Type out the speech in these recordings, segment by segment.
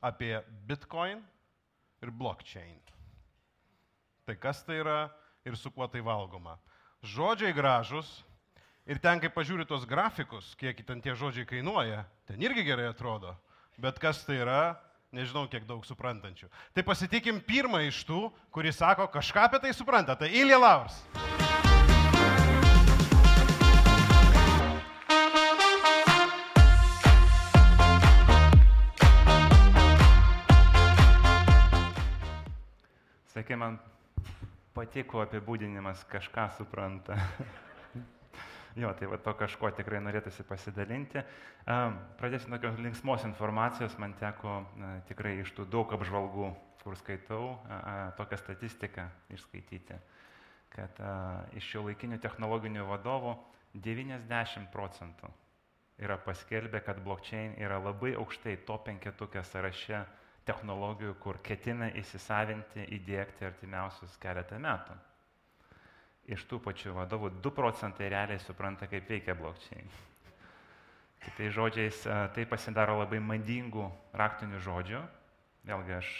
apie Bitcoin ir blockchain. Tai kas tai yra ir su kuo tai valgoma. Žodžiai gražus ir ten, kai pažiūri tos grafikus, kiek ten tie žodžiai kainuoja, ten irgi gerai atrodo. Bet kas tai yra, nežinau, kiek daug suprantančių. Tai pasitikim pirmą iš tų, kuris sako, kažką apie tai supranta. Tai Ilja Laurs. Sakė, man patiko apibūdinimas, kažką supranta. Jo, tai va to kažko tikrai norėtųsi pasidalinti. Pradėsiu nuo linksmos informacijos, man teko tikrai iš tų daug apžvalgų, kur skaitau, tokią statistiką išskaityti, kad iš šiuolaikinių technologinių vadovų 90% yra paskelbę, kad blockchain yra labai aukštai top 5 sąraše technologijų, kur ketina įsisavinti, įdiegti artimiausius keletą metų. Iš tų pačių vadovų 2% realiai supranta, kaip veikia blockchain. Kitais žodžiais, tai pasidaro labai madingų raktinių žodžių. Vėlgi, aš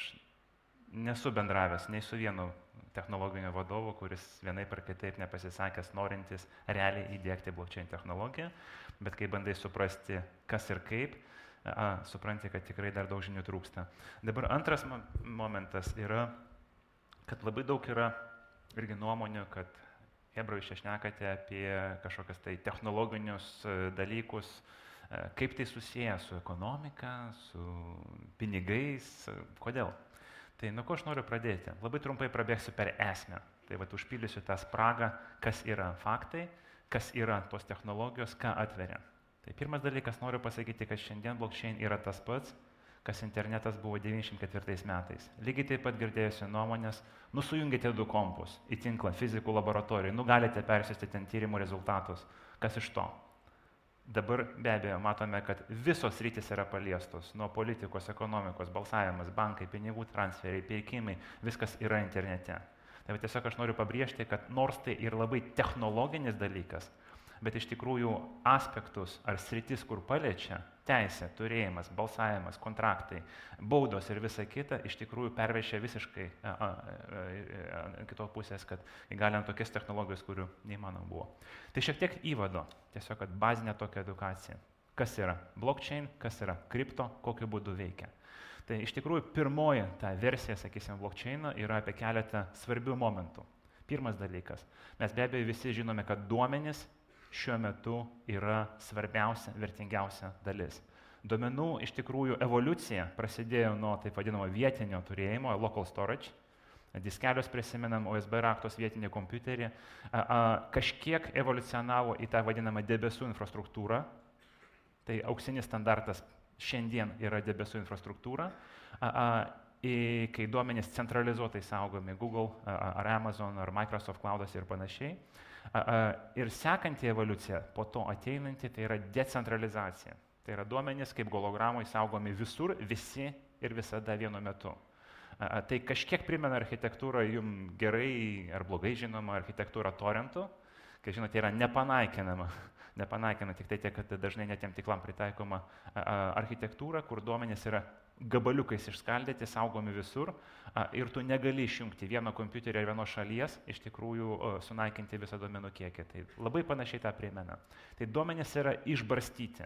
nesu bendravęs nei su vienu technologiniu vadovu, kuris vienaip ar kitaip nepasisakęs, norintis realiai įdiegti blockchain technologiją, bet kai bandai suprasti, kas ir kaip, supranti, kad tikrai dar daug žinių trūksta. Dabar antras momentas yra, kad labai daug yra irgi nuomonių, kad hebra, jūs čia šnekate apie kažkokias tai technologinius dalykus, kaip tai susiję su ekonomika, su pinigais, kodėl. Tai nuo ko aš noriu pradėti? Labai trumpai prabėgsiu per esmę. Tai vat užpildysiu tą spragą, kas yra faktai, kas yra tos technologijos, ką atveria. Tai pirmas dalykas, noriu pasakyti, kad šiandien blockchain yra tas pats, kas internetas buvo 94 metais. Lygiai taip pat girdėjusi nuomonės, sujungite 2 kompus į tinklą fizikų laboratorijai, galite persiųsti ten tyrimų rezultatus. Kas iš to? Dabar be abejo matome, kad visos sritys yra paliestos, nuo politikos, ekonomikos, balsavimas, bankai, pinigų transferiai, pirkimai, viskas yra internete. Tai tiesiog aš noriu pabrėžti, kad nors tai ir labai technologinis dalykas, bet iš tikrųjų aspektus ar sritis, kur paliečia teisė, turėjimas, balsavimas, kontraktai, baudos ir visa kita, iš tikrųjų pervešia visiškai kitos pusės, kad įgalinant tokias technologijas, kurių neįmanoma buvo. Tai šiek tiek įvado, tiesiog kad bazinė tokia edukacija. Kas yra blockchain, kas yra kripto, kokiu būdu veikia. Tai iš tikrųjų pirmoji ta versija, sakysim, blockchaino yra apie keletą svarbių momentų. Pirmas dalykas, mes be abejo visi žinome, kad duomenys šiuo metu yra svarbiausia, vertingiausia dalis. Duomenų iš tikrųjų evoliucija prasidėjo nuo taip vadinamo vietinio turėjimo, local storage, diskelius prisimenam, USB raktos vietinį kompiuterį, kažkiek evoliucionavo į tą vadinamą debesų infrastruktūrą, tai auksinis standartas šiandien yra debesų infrastruktūra, kai duomenys centralizuotai saugomi Google ar Amazon ar Microsoft Cloud'ose ir panašiai. Ir sekanti evoliucija, po to ateinanti, tai yra decentralizacija. Tai yra duomenys kaip hologramai saugomi visur, visi ir visada vienu metu. Tai kažkiek primena architektūrą jums gerai ar blogai žinoma architektūra torrentų, kai žinote, yra nepanaikinama, tik tai tiek, kad dažnai netiem tiklam pritaikoma architektūra, kur duomenys yra gabaliukais išskaldyti, saugomi visur ir tu negali išjungti vieno kompiuterio ir vienos šalies, iš tikrųjų sunaikinti visą duomenų kiekį. Tai labai panašiai tą primena. Tai duomenys yra išbarstyti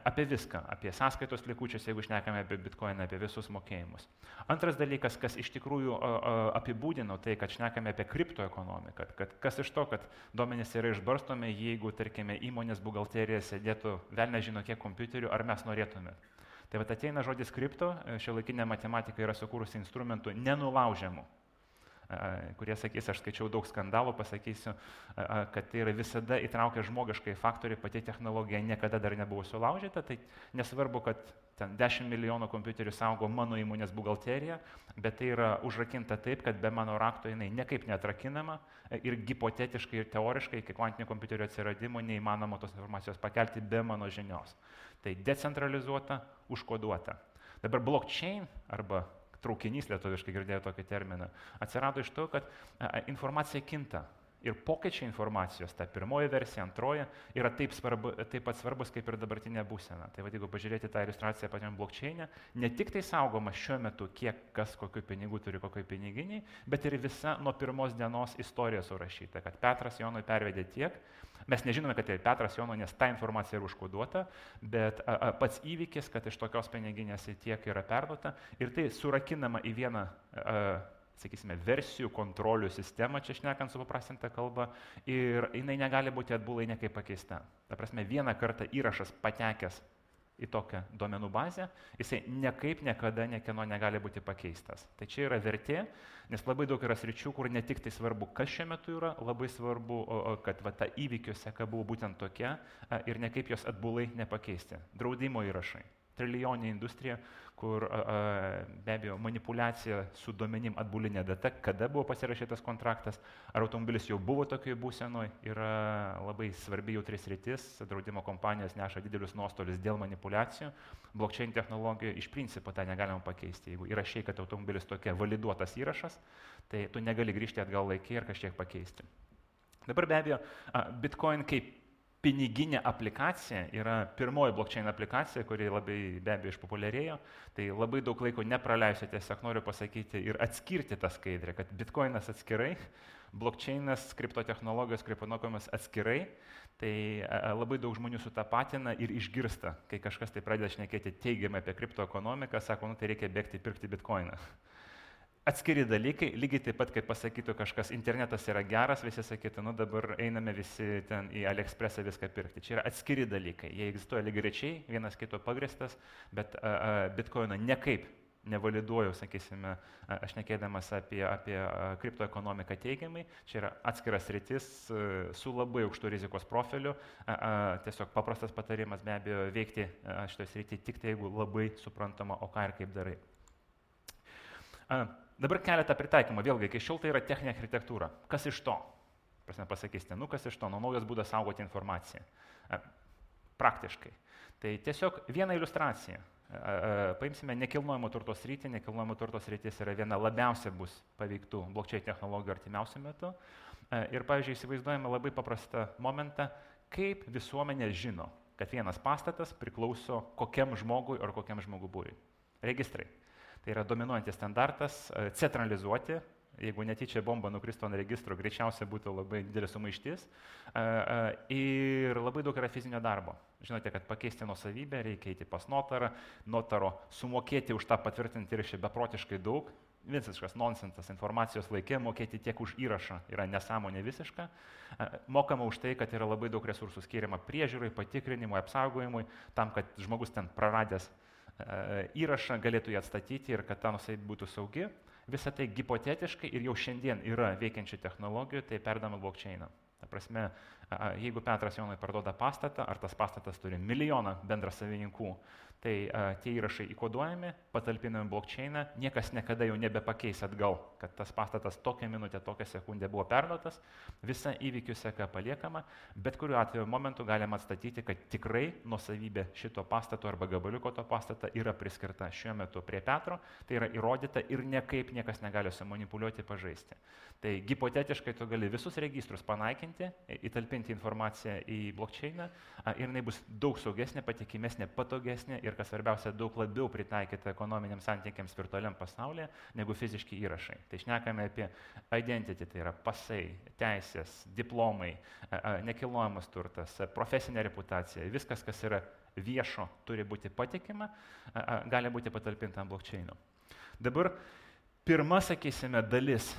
apie viską, apie sąskaitos likučius, jeigu šnekame apie bitcoiną, apie visus mokėjimus. Antras dalykas, kas iš tikrųjų apibūdino tai, kad šnekame apie kriptoekonomiką, kad kas iš to, kad duomenys yra išbarstomi, jeigu, tarkime, įmonės buhalterija sėdėtų velnė žino kiek kompiuterių, ar mes norėtume. Tai vat ateina žodis kripto, šiuolaikinė matematika yra sukūrusi instrumentų nenulaužiamų, kurie sakys, aš skaičiau daug skandalų, pasakysiu, kad tai yra visada įtraukia žmogiškai faktoriai, pati technologija niekada dar nebuvo sulaužyta, tai nesvarbu, kad ten 10 milijonų kompiuterių saugo mano įmonės buhalterija, bet tai yra užrakinta taip, kad be mano rakto jinai niekaip neatrakinama ir hipotetiškai ir teoriškai iki kvantinių kompiuterių atsiradimo neįmanoma tos informacijos pakelti be mano žinios. Tai decentralizuota, užkoduota. Dabar blockchain arba traukinys, lietuviškai girdėjau tokį terminą, atsirado iš to, kad informacija kinta. ir pokyčiai informacijos, ta pirmoji versija, antroji, yra taip pat svarbus kaip ir dabartinė būsena. Tai jeigu pažiūrėti tą iliustraciją pačiam blockchain'e, ne tik tai saugoma šiuo metu, kiek kas kokių pinigų turi kokioj piniginiai, bet ir visa nuo pirmos dienos istorija surašyta, kad Petras Jonui pervedė tiek. Mes nežinome, kad tai Petras Jonui, nes ta informacija yra užkoduota, bet pats įvykis, kad iš tokios piniginės tiek yra perduota ir tai surakinama į vieną sakysime, versijų kontrolių sistemą, čia šnekant supaprastintą kalbą, ir jinai negali būti atbulai niekaip pakeista. Ta prasme, vieną kartą įrašas patekęs į tokią duomenų bazę, jisai niekaip niekada niekieno negali būti pakeistas. Tai čia yra vertė, nes labai daug yra sričių, kur ne tik tai svarbu, kas šiuo metu yra, labai svarbu, kad ta įvykių seka buvo būtent tokia ir nekaip jos atbulai nepakeisti. Draudimo įrašai. Trilijoninė industrija, kur be abejo manipulacija su duomenim atbulinė data, kada buvo pasirašytas kontraktas, ar automobilis jau buvo tokioje būsenoje, yra labai svarbi jautri sritis, draudimo kompanijos neša didelius nuostolius dėl manipulacijų, blockchain technologijų iš principo tą negalima pakeisti. Jeigu įrašai, kad automobilis tokia validuotas įrašas, tai tu negali grįžti atgal laikį ir kažkiek pakeisti. Dabar be abejo, Bitcoin kaip piniginė aplikacija yra pirmoji blockchain aplikacija, kuri labai be abejo išpopuliarėjo. Tai labai daug laiko nepraleisiu, tiesiog noriu pasakyti ir atskirti tą skaidrę, kad Bitcoinas atskirai, blockchainas, kriptotechnologijos, kriptoekonomikos atskirai. Tai labai daug žmonių sutapatina ir išgirsta, kai kažkas tai pradeda šnekėti teigiamai apie kriptoekonomiką, sako, tai reikia bėgti pirkti Bitcoiną. Atskiri dalykai, lygiai taip pat, kaip pasakytų kažkas, internetas yra geras, visi sakytų, dabar einame visi ten į AliExpressą viską pirkti. Čia yra atskiri dalykai, jie egzistuoja lygiagrečiai, vienas kito pagristas, bet Bitcoino nekaip nevaliduoju, sakysime, aš nekėdamas apie kriptoekonomiką teigiamai, čia yra atskiras sritis su labai aukštu rizikos profiliu, tiesiog paprastas patarimas be abejo veikti šitoje srityje tik tai, jeigu labai suprantama, o ką ir kaip darai. Dabar keletą pritaikymą, vėlgi, iki šiol tai yra techninė architektūra. Kas iš to? Prasme pasakysite, kas iš to? Naujas būdas saugoti informaciją. Praktiškai. Tai tiesiog viena iliustracija. Paimsime nekilnojamo turto sritį. Nekilnojamo turto sritis yra viena labiausiai bus paveiktų blockchain technologijų artimiausiu metu. Ir, pavyzdžiui, įsivaizduojame labai paprastą momentą, kaip visuomenė žino, kad vienas pastatas priklauso kokiam žmogui ar kokiam žmogų būriui. Registrai. Tai yra dominuojantis standartas, centralizuoti, jeigu netyčia bomba nukristų ant registro, greičiausiai būtų labai didelis sumaištis. Ir labai daug yra fizinio darbo. Žinote, kad pakeisti nuosavybę reikia eiti pas notarą, notaro sumokėti už tą patvirtinti įrašą beprotiškai daug. Visiškas nonsensas informacijos laikė, mokėti tiek už įrašą yra nesąmonė visiška. Mokama už tai, kad yra labai daug resursų skiriama priežiūrai, patikrinimui, apsaugojimui, tam, kad žmogus ten praradęs įrašą galėtų jį atstatyti ir kad ta nuosavybė būtų saugi. Visą tai hipotetiškai ir jau šiandien yra veikiančių technologijų, tai perdama blockchainą. Ta prasme, jeigu Petras Jonui parduoda pastatą, ar tas pastatas turi milijoną bendrasavininkų, tai tie įrašai įkoduojami, patalpinami blockchainą, niekas niekada jau nebepakeis atgal, kad tas pastatas tokią minutę, tokią sekundę buvo perduotas, visa įvykių seka paliekama, bet kuriuo atveju momentu galima atstatyti, kad tikrai nuosavybė šito pastato arba gabaliuko to pastato yra priskirta šiuo metu prie Petro, tai yra įrodyta ir niekaip niekas negali sumanipuliuoti, pažaisti. Tai hipotetiškai tu gali visus registrus panaikinti, įtalpinti informaciją į blockchainą ir jinai bus daug saugesnė, patikimesnė, patogesnė ir, kas svarbiausia, daug labiau pritaikyta ekonominiams santykiams virtualiam pasaulyje negu fiziški įrašai. Tai šnekame apie identity, tai yra pasai, teisės, diplomai, nekilnojamas turtas, profesinė reputacija, viskas, kas yra viešo, turi būti patikima, gali būti patalpinta ant blockchaino. Dabar pirma, sakysime, dalis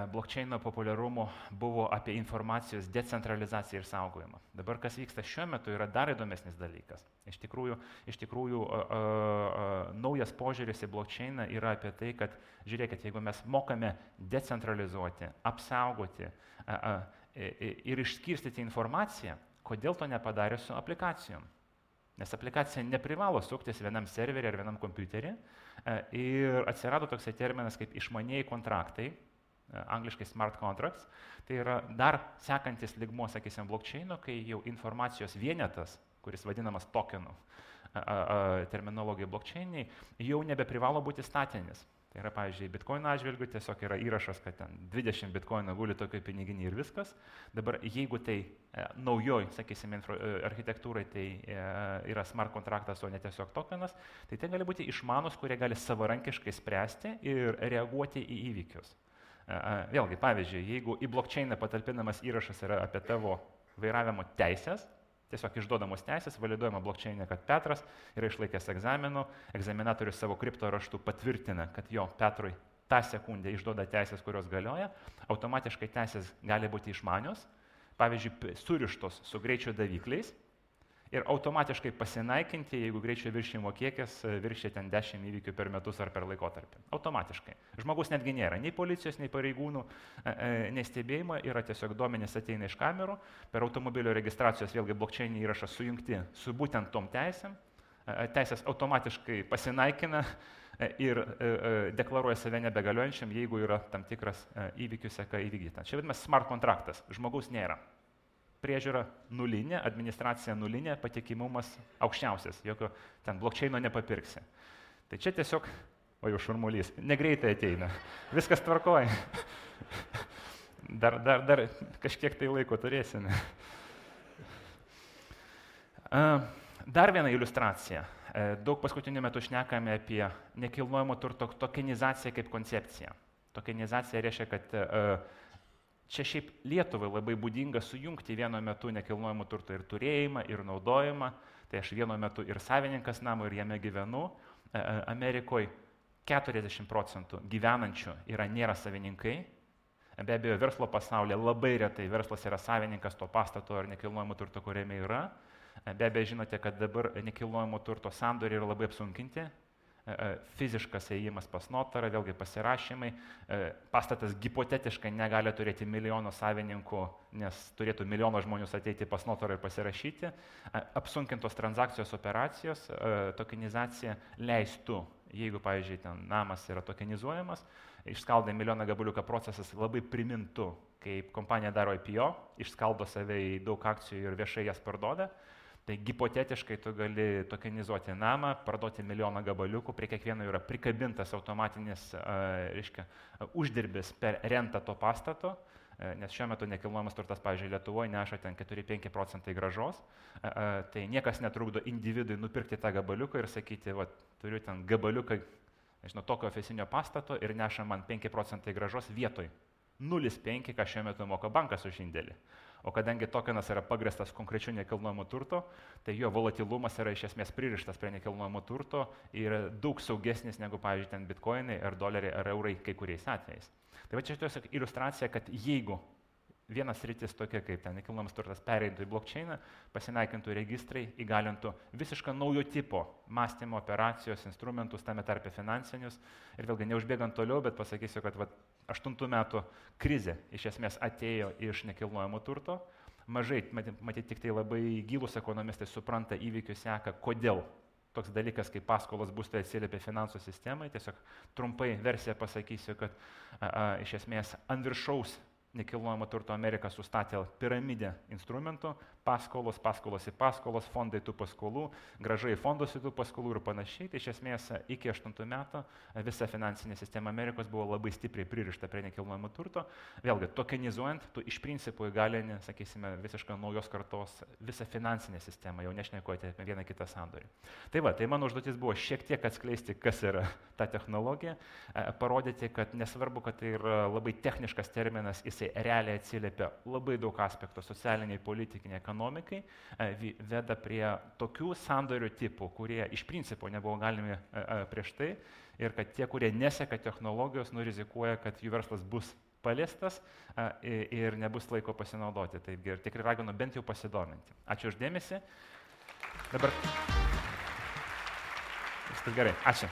blockchaino populiarumo buvo apie informacijos decentralizaciją ir saugojimą. Dabar, kas vyksta šiuo metu, yra dar įdomesnis dalykas. Iš tikrųjų naujas požiūris į blockchainą yra apie tai, kad, žiūrėkit, jeigu mes mokame decentralizuoti, apsaugoti ir išskirstyti informaciją, kodėl to nepadarė su aplikacijom? Nes aplikacija neprivalo suktis vienam serverį ar vienam kompiuterį ir atsirado toksai terminas kaip išmanieji kontraktai, angliškai smart contracts, tai yra dar sekantis lygmuo, sakysim, blockchaino, kai jau informacijos vienetas, kuris vadinamas tokenų terminologija blockchainiai, jau nebeprivalo būti statinis. Tai yra, pavyzdžiui, bitkoino atžvilgiu tiesiog yra įrašas, kad ten 20 bitkoino guli tokio piniginį ir viskas. Dabar jeigu tai naujoj, sakysime, architektūrai tai yra smart kontraktas, o ne tiesiog tokenas, tai tai gali būti išmanus, kurie gali savarankiškai spręsti ir reaguoti į įvykius. Vėlgi, pavyzdžiui, jeigu į blockchainą patalpinamas įrašas yra apie tavo vairavimo teisės, tiesiog išduodamos teisės, validuojama blockchainė, kad Petras yra išlaikęs egzaminų, egzaminatorius savo kripto raštu patvirtina, kad jo Petrui tą sekundę išduoda teisės, kurios galioja, automatiškai teisės gali būti išmanios, pavyzdžiui, surištos su greičio davikliais ir automatiškai pasinaikinti, jeigu greičio viršijimo kiekis viršia ten 10 įvykių per metus ar per laikotarpį. Automatiškai. Žmogus netgi nėra nei policijos, nei pareigūnų, nei stebėjimo, yra tiesiog duomenys ateina iš kamerų, per automobilio registracijos vėlgi blockchainį įrašą sujungti su būtent tom teisėm, teisės automatiškai pasinaikina ir deklaruoja save nebegaliojančiam, jeigu yra tam tikras įvykių seka įvykdyta. Čia vadinamas smart kontraktas, žmogaus nėra. Priežiūra nulinė, administracija nulinė, patikimumas aukščiausias, jokio ten blockchaino nepapirksi. Tai čia tiesiog, o jau šurmulys, negreitai ateina, viskas tvarkoja. Dar kažkiek tai laiko turėsime. Dar viena iliustracija. Daug paskutiniu metu šnekame apie nekilnojamo turto tokenizaciją kaip koncepciją. Tokenizacija reiškia, kad čia šiaip Lietuvai labai būdinga sujungti vienu metu nekilnojamo turto ir turėjimą, ir naudojimą. Tai aš vienu metu ir savininkas namo, ir jame gyvenu. Amerikoje 40% gyvenančių nėra savininkai. Be abejo, verslo pasaulyje labai retai verslas yra savininkas to pastato ar nekilnojamo turto, kuriame yra. Be abejo, žinote, kad dabar nekilnojamo turto sandoriai yra labai apsunkinti. Fiziškas ėjimas pas notarą, vėlgi pasirašymai, pastatas hipotetiškai negali turėti milijono savininkų, nes turėtų milijono žmonių ateiti pas notarą ir pasirašyti. Apsunkintos transakcijos operacijos, tokenizacija leistų, jeigu, pavyzdžiui, ten namas yra tokenizuojamas, išskaldai milijoną gabaliuką procesas labai primintų, kaip kompanija daro IPO, išskaldo save į daug akcijų ir viešai jas parduoda. Tai hipotetiškai tu gali tokenizuoti namą, parduoti milijoną gabaliukų, prie kiekvieno yra prikabintas automatinis uždirbis per rentą to pastato, nes šiuo metu nekilnojamas turtas, pavyzdžiui, Lietuvoje neša ten 4-5% grąžos, tai niekas netrukdo individui nupirkti tą gabaliuką ir sakyti, va, turiu ten gabaliuką, žinau, tokio ofisinio pastato ir neša man 5% grąžos vietoj 0,5, ką šiuo metu moka bankas už indėlį. O kadangi tokenas yra pagrįstas konkrečiu nekilnojamo turto, tai jo volatilumas yra iš esmės pririštas prie nekilnojamo turto ir daug saugesnis negu, pavyzdžiui, ten bitkoinai ar doleriai ar eurai kai kuriais atvejais. Tai va čia tiesiog iliustracija, kad jeigu vienas sritis tokia kaip ten nekilnojamas turtas pereitų į blockchainą, pasinaikintų registrai, įgalintų visišką naujo tipo mąstymo operacijos, instrumentus, tame tarpe finansinius. Ir vėlgi neužbėgant toliau, bet pasakysiu, kad 8 metų krizė iš esmės atėjo iš nekilnojamo turto. Mažai, matyti tik tai labai gilūs ekonomistai supranta įvykių seką, kodėl toks dalykas kaip paskolos būstai atsiliepia finansų sistemai. Tiesiog trumpai versiją pasakysiu, kad iš esmės ant viršaus nekilnojamo turto Amerika sustatė piramidę instrumentų, paskolos į paskolos, fondai tų paskolų, grąžai fondus į tų paskolų ir panašiai. Tai iš esmės iki 8 metų visa finansinė sistema Amerikos buvo labai stipriai pririšta prie nekilnojamo turto. Vėlgi, tokenizuojant, tu iš principo įgalini, sakysime, visiškai naujos kartos visą finansinę sistemą, jau nešnekuoti apie vieną kitą sandorį. Tai va, tai mano užduotis buvo šiek tiek atskleisti, kas yra ta technologija, parodyti, kad nesvarbu, kad tai yra labai techniškas terminas, jisai realiai atsiliepia labai daug aspektų socialiniai, politiniai, ekonomikai, veda prie tokių sandorių tipų, kurie iš principo nebuvo galimi prieš tai ir kad tie, kurie neseka technologijos, rizikuoja, kad jų verslas bus paliestas ir nebus laiko pasinaudoti. Taigi ir tikrai raginu bent jau pasidominti. Ačiū už dėmesį. Dabar viskas gerai. Ačiū.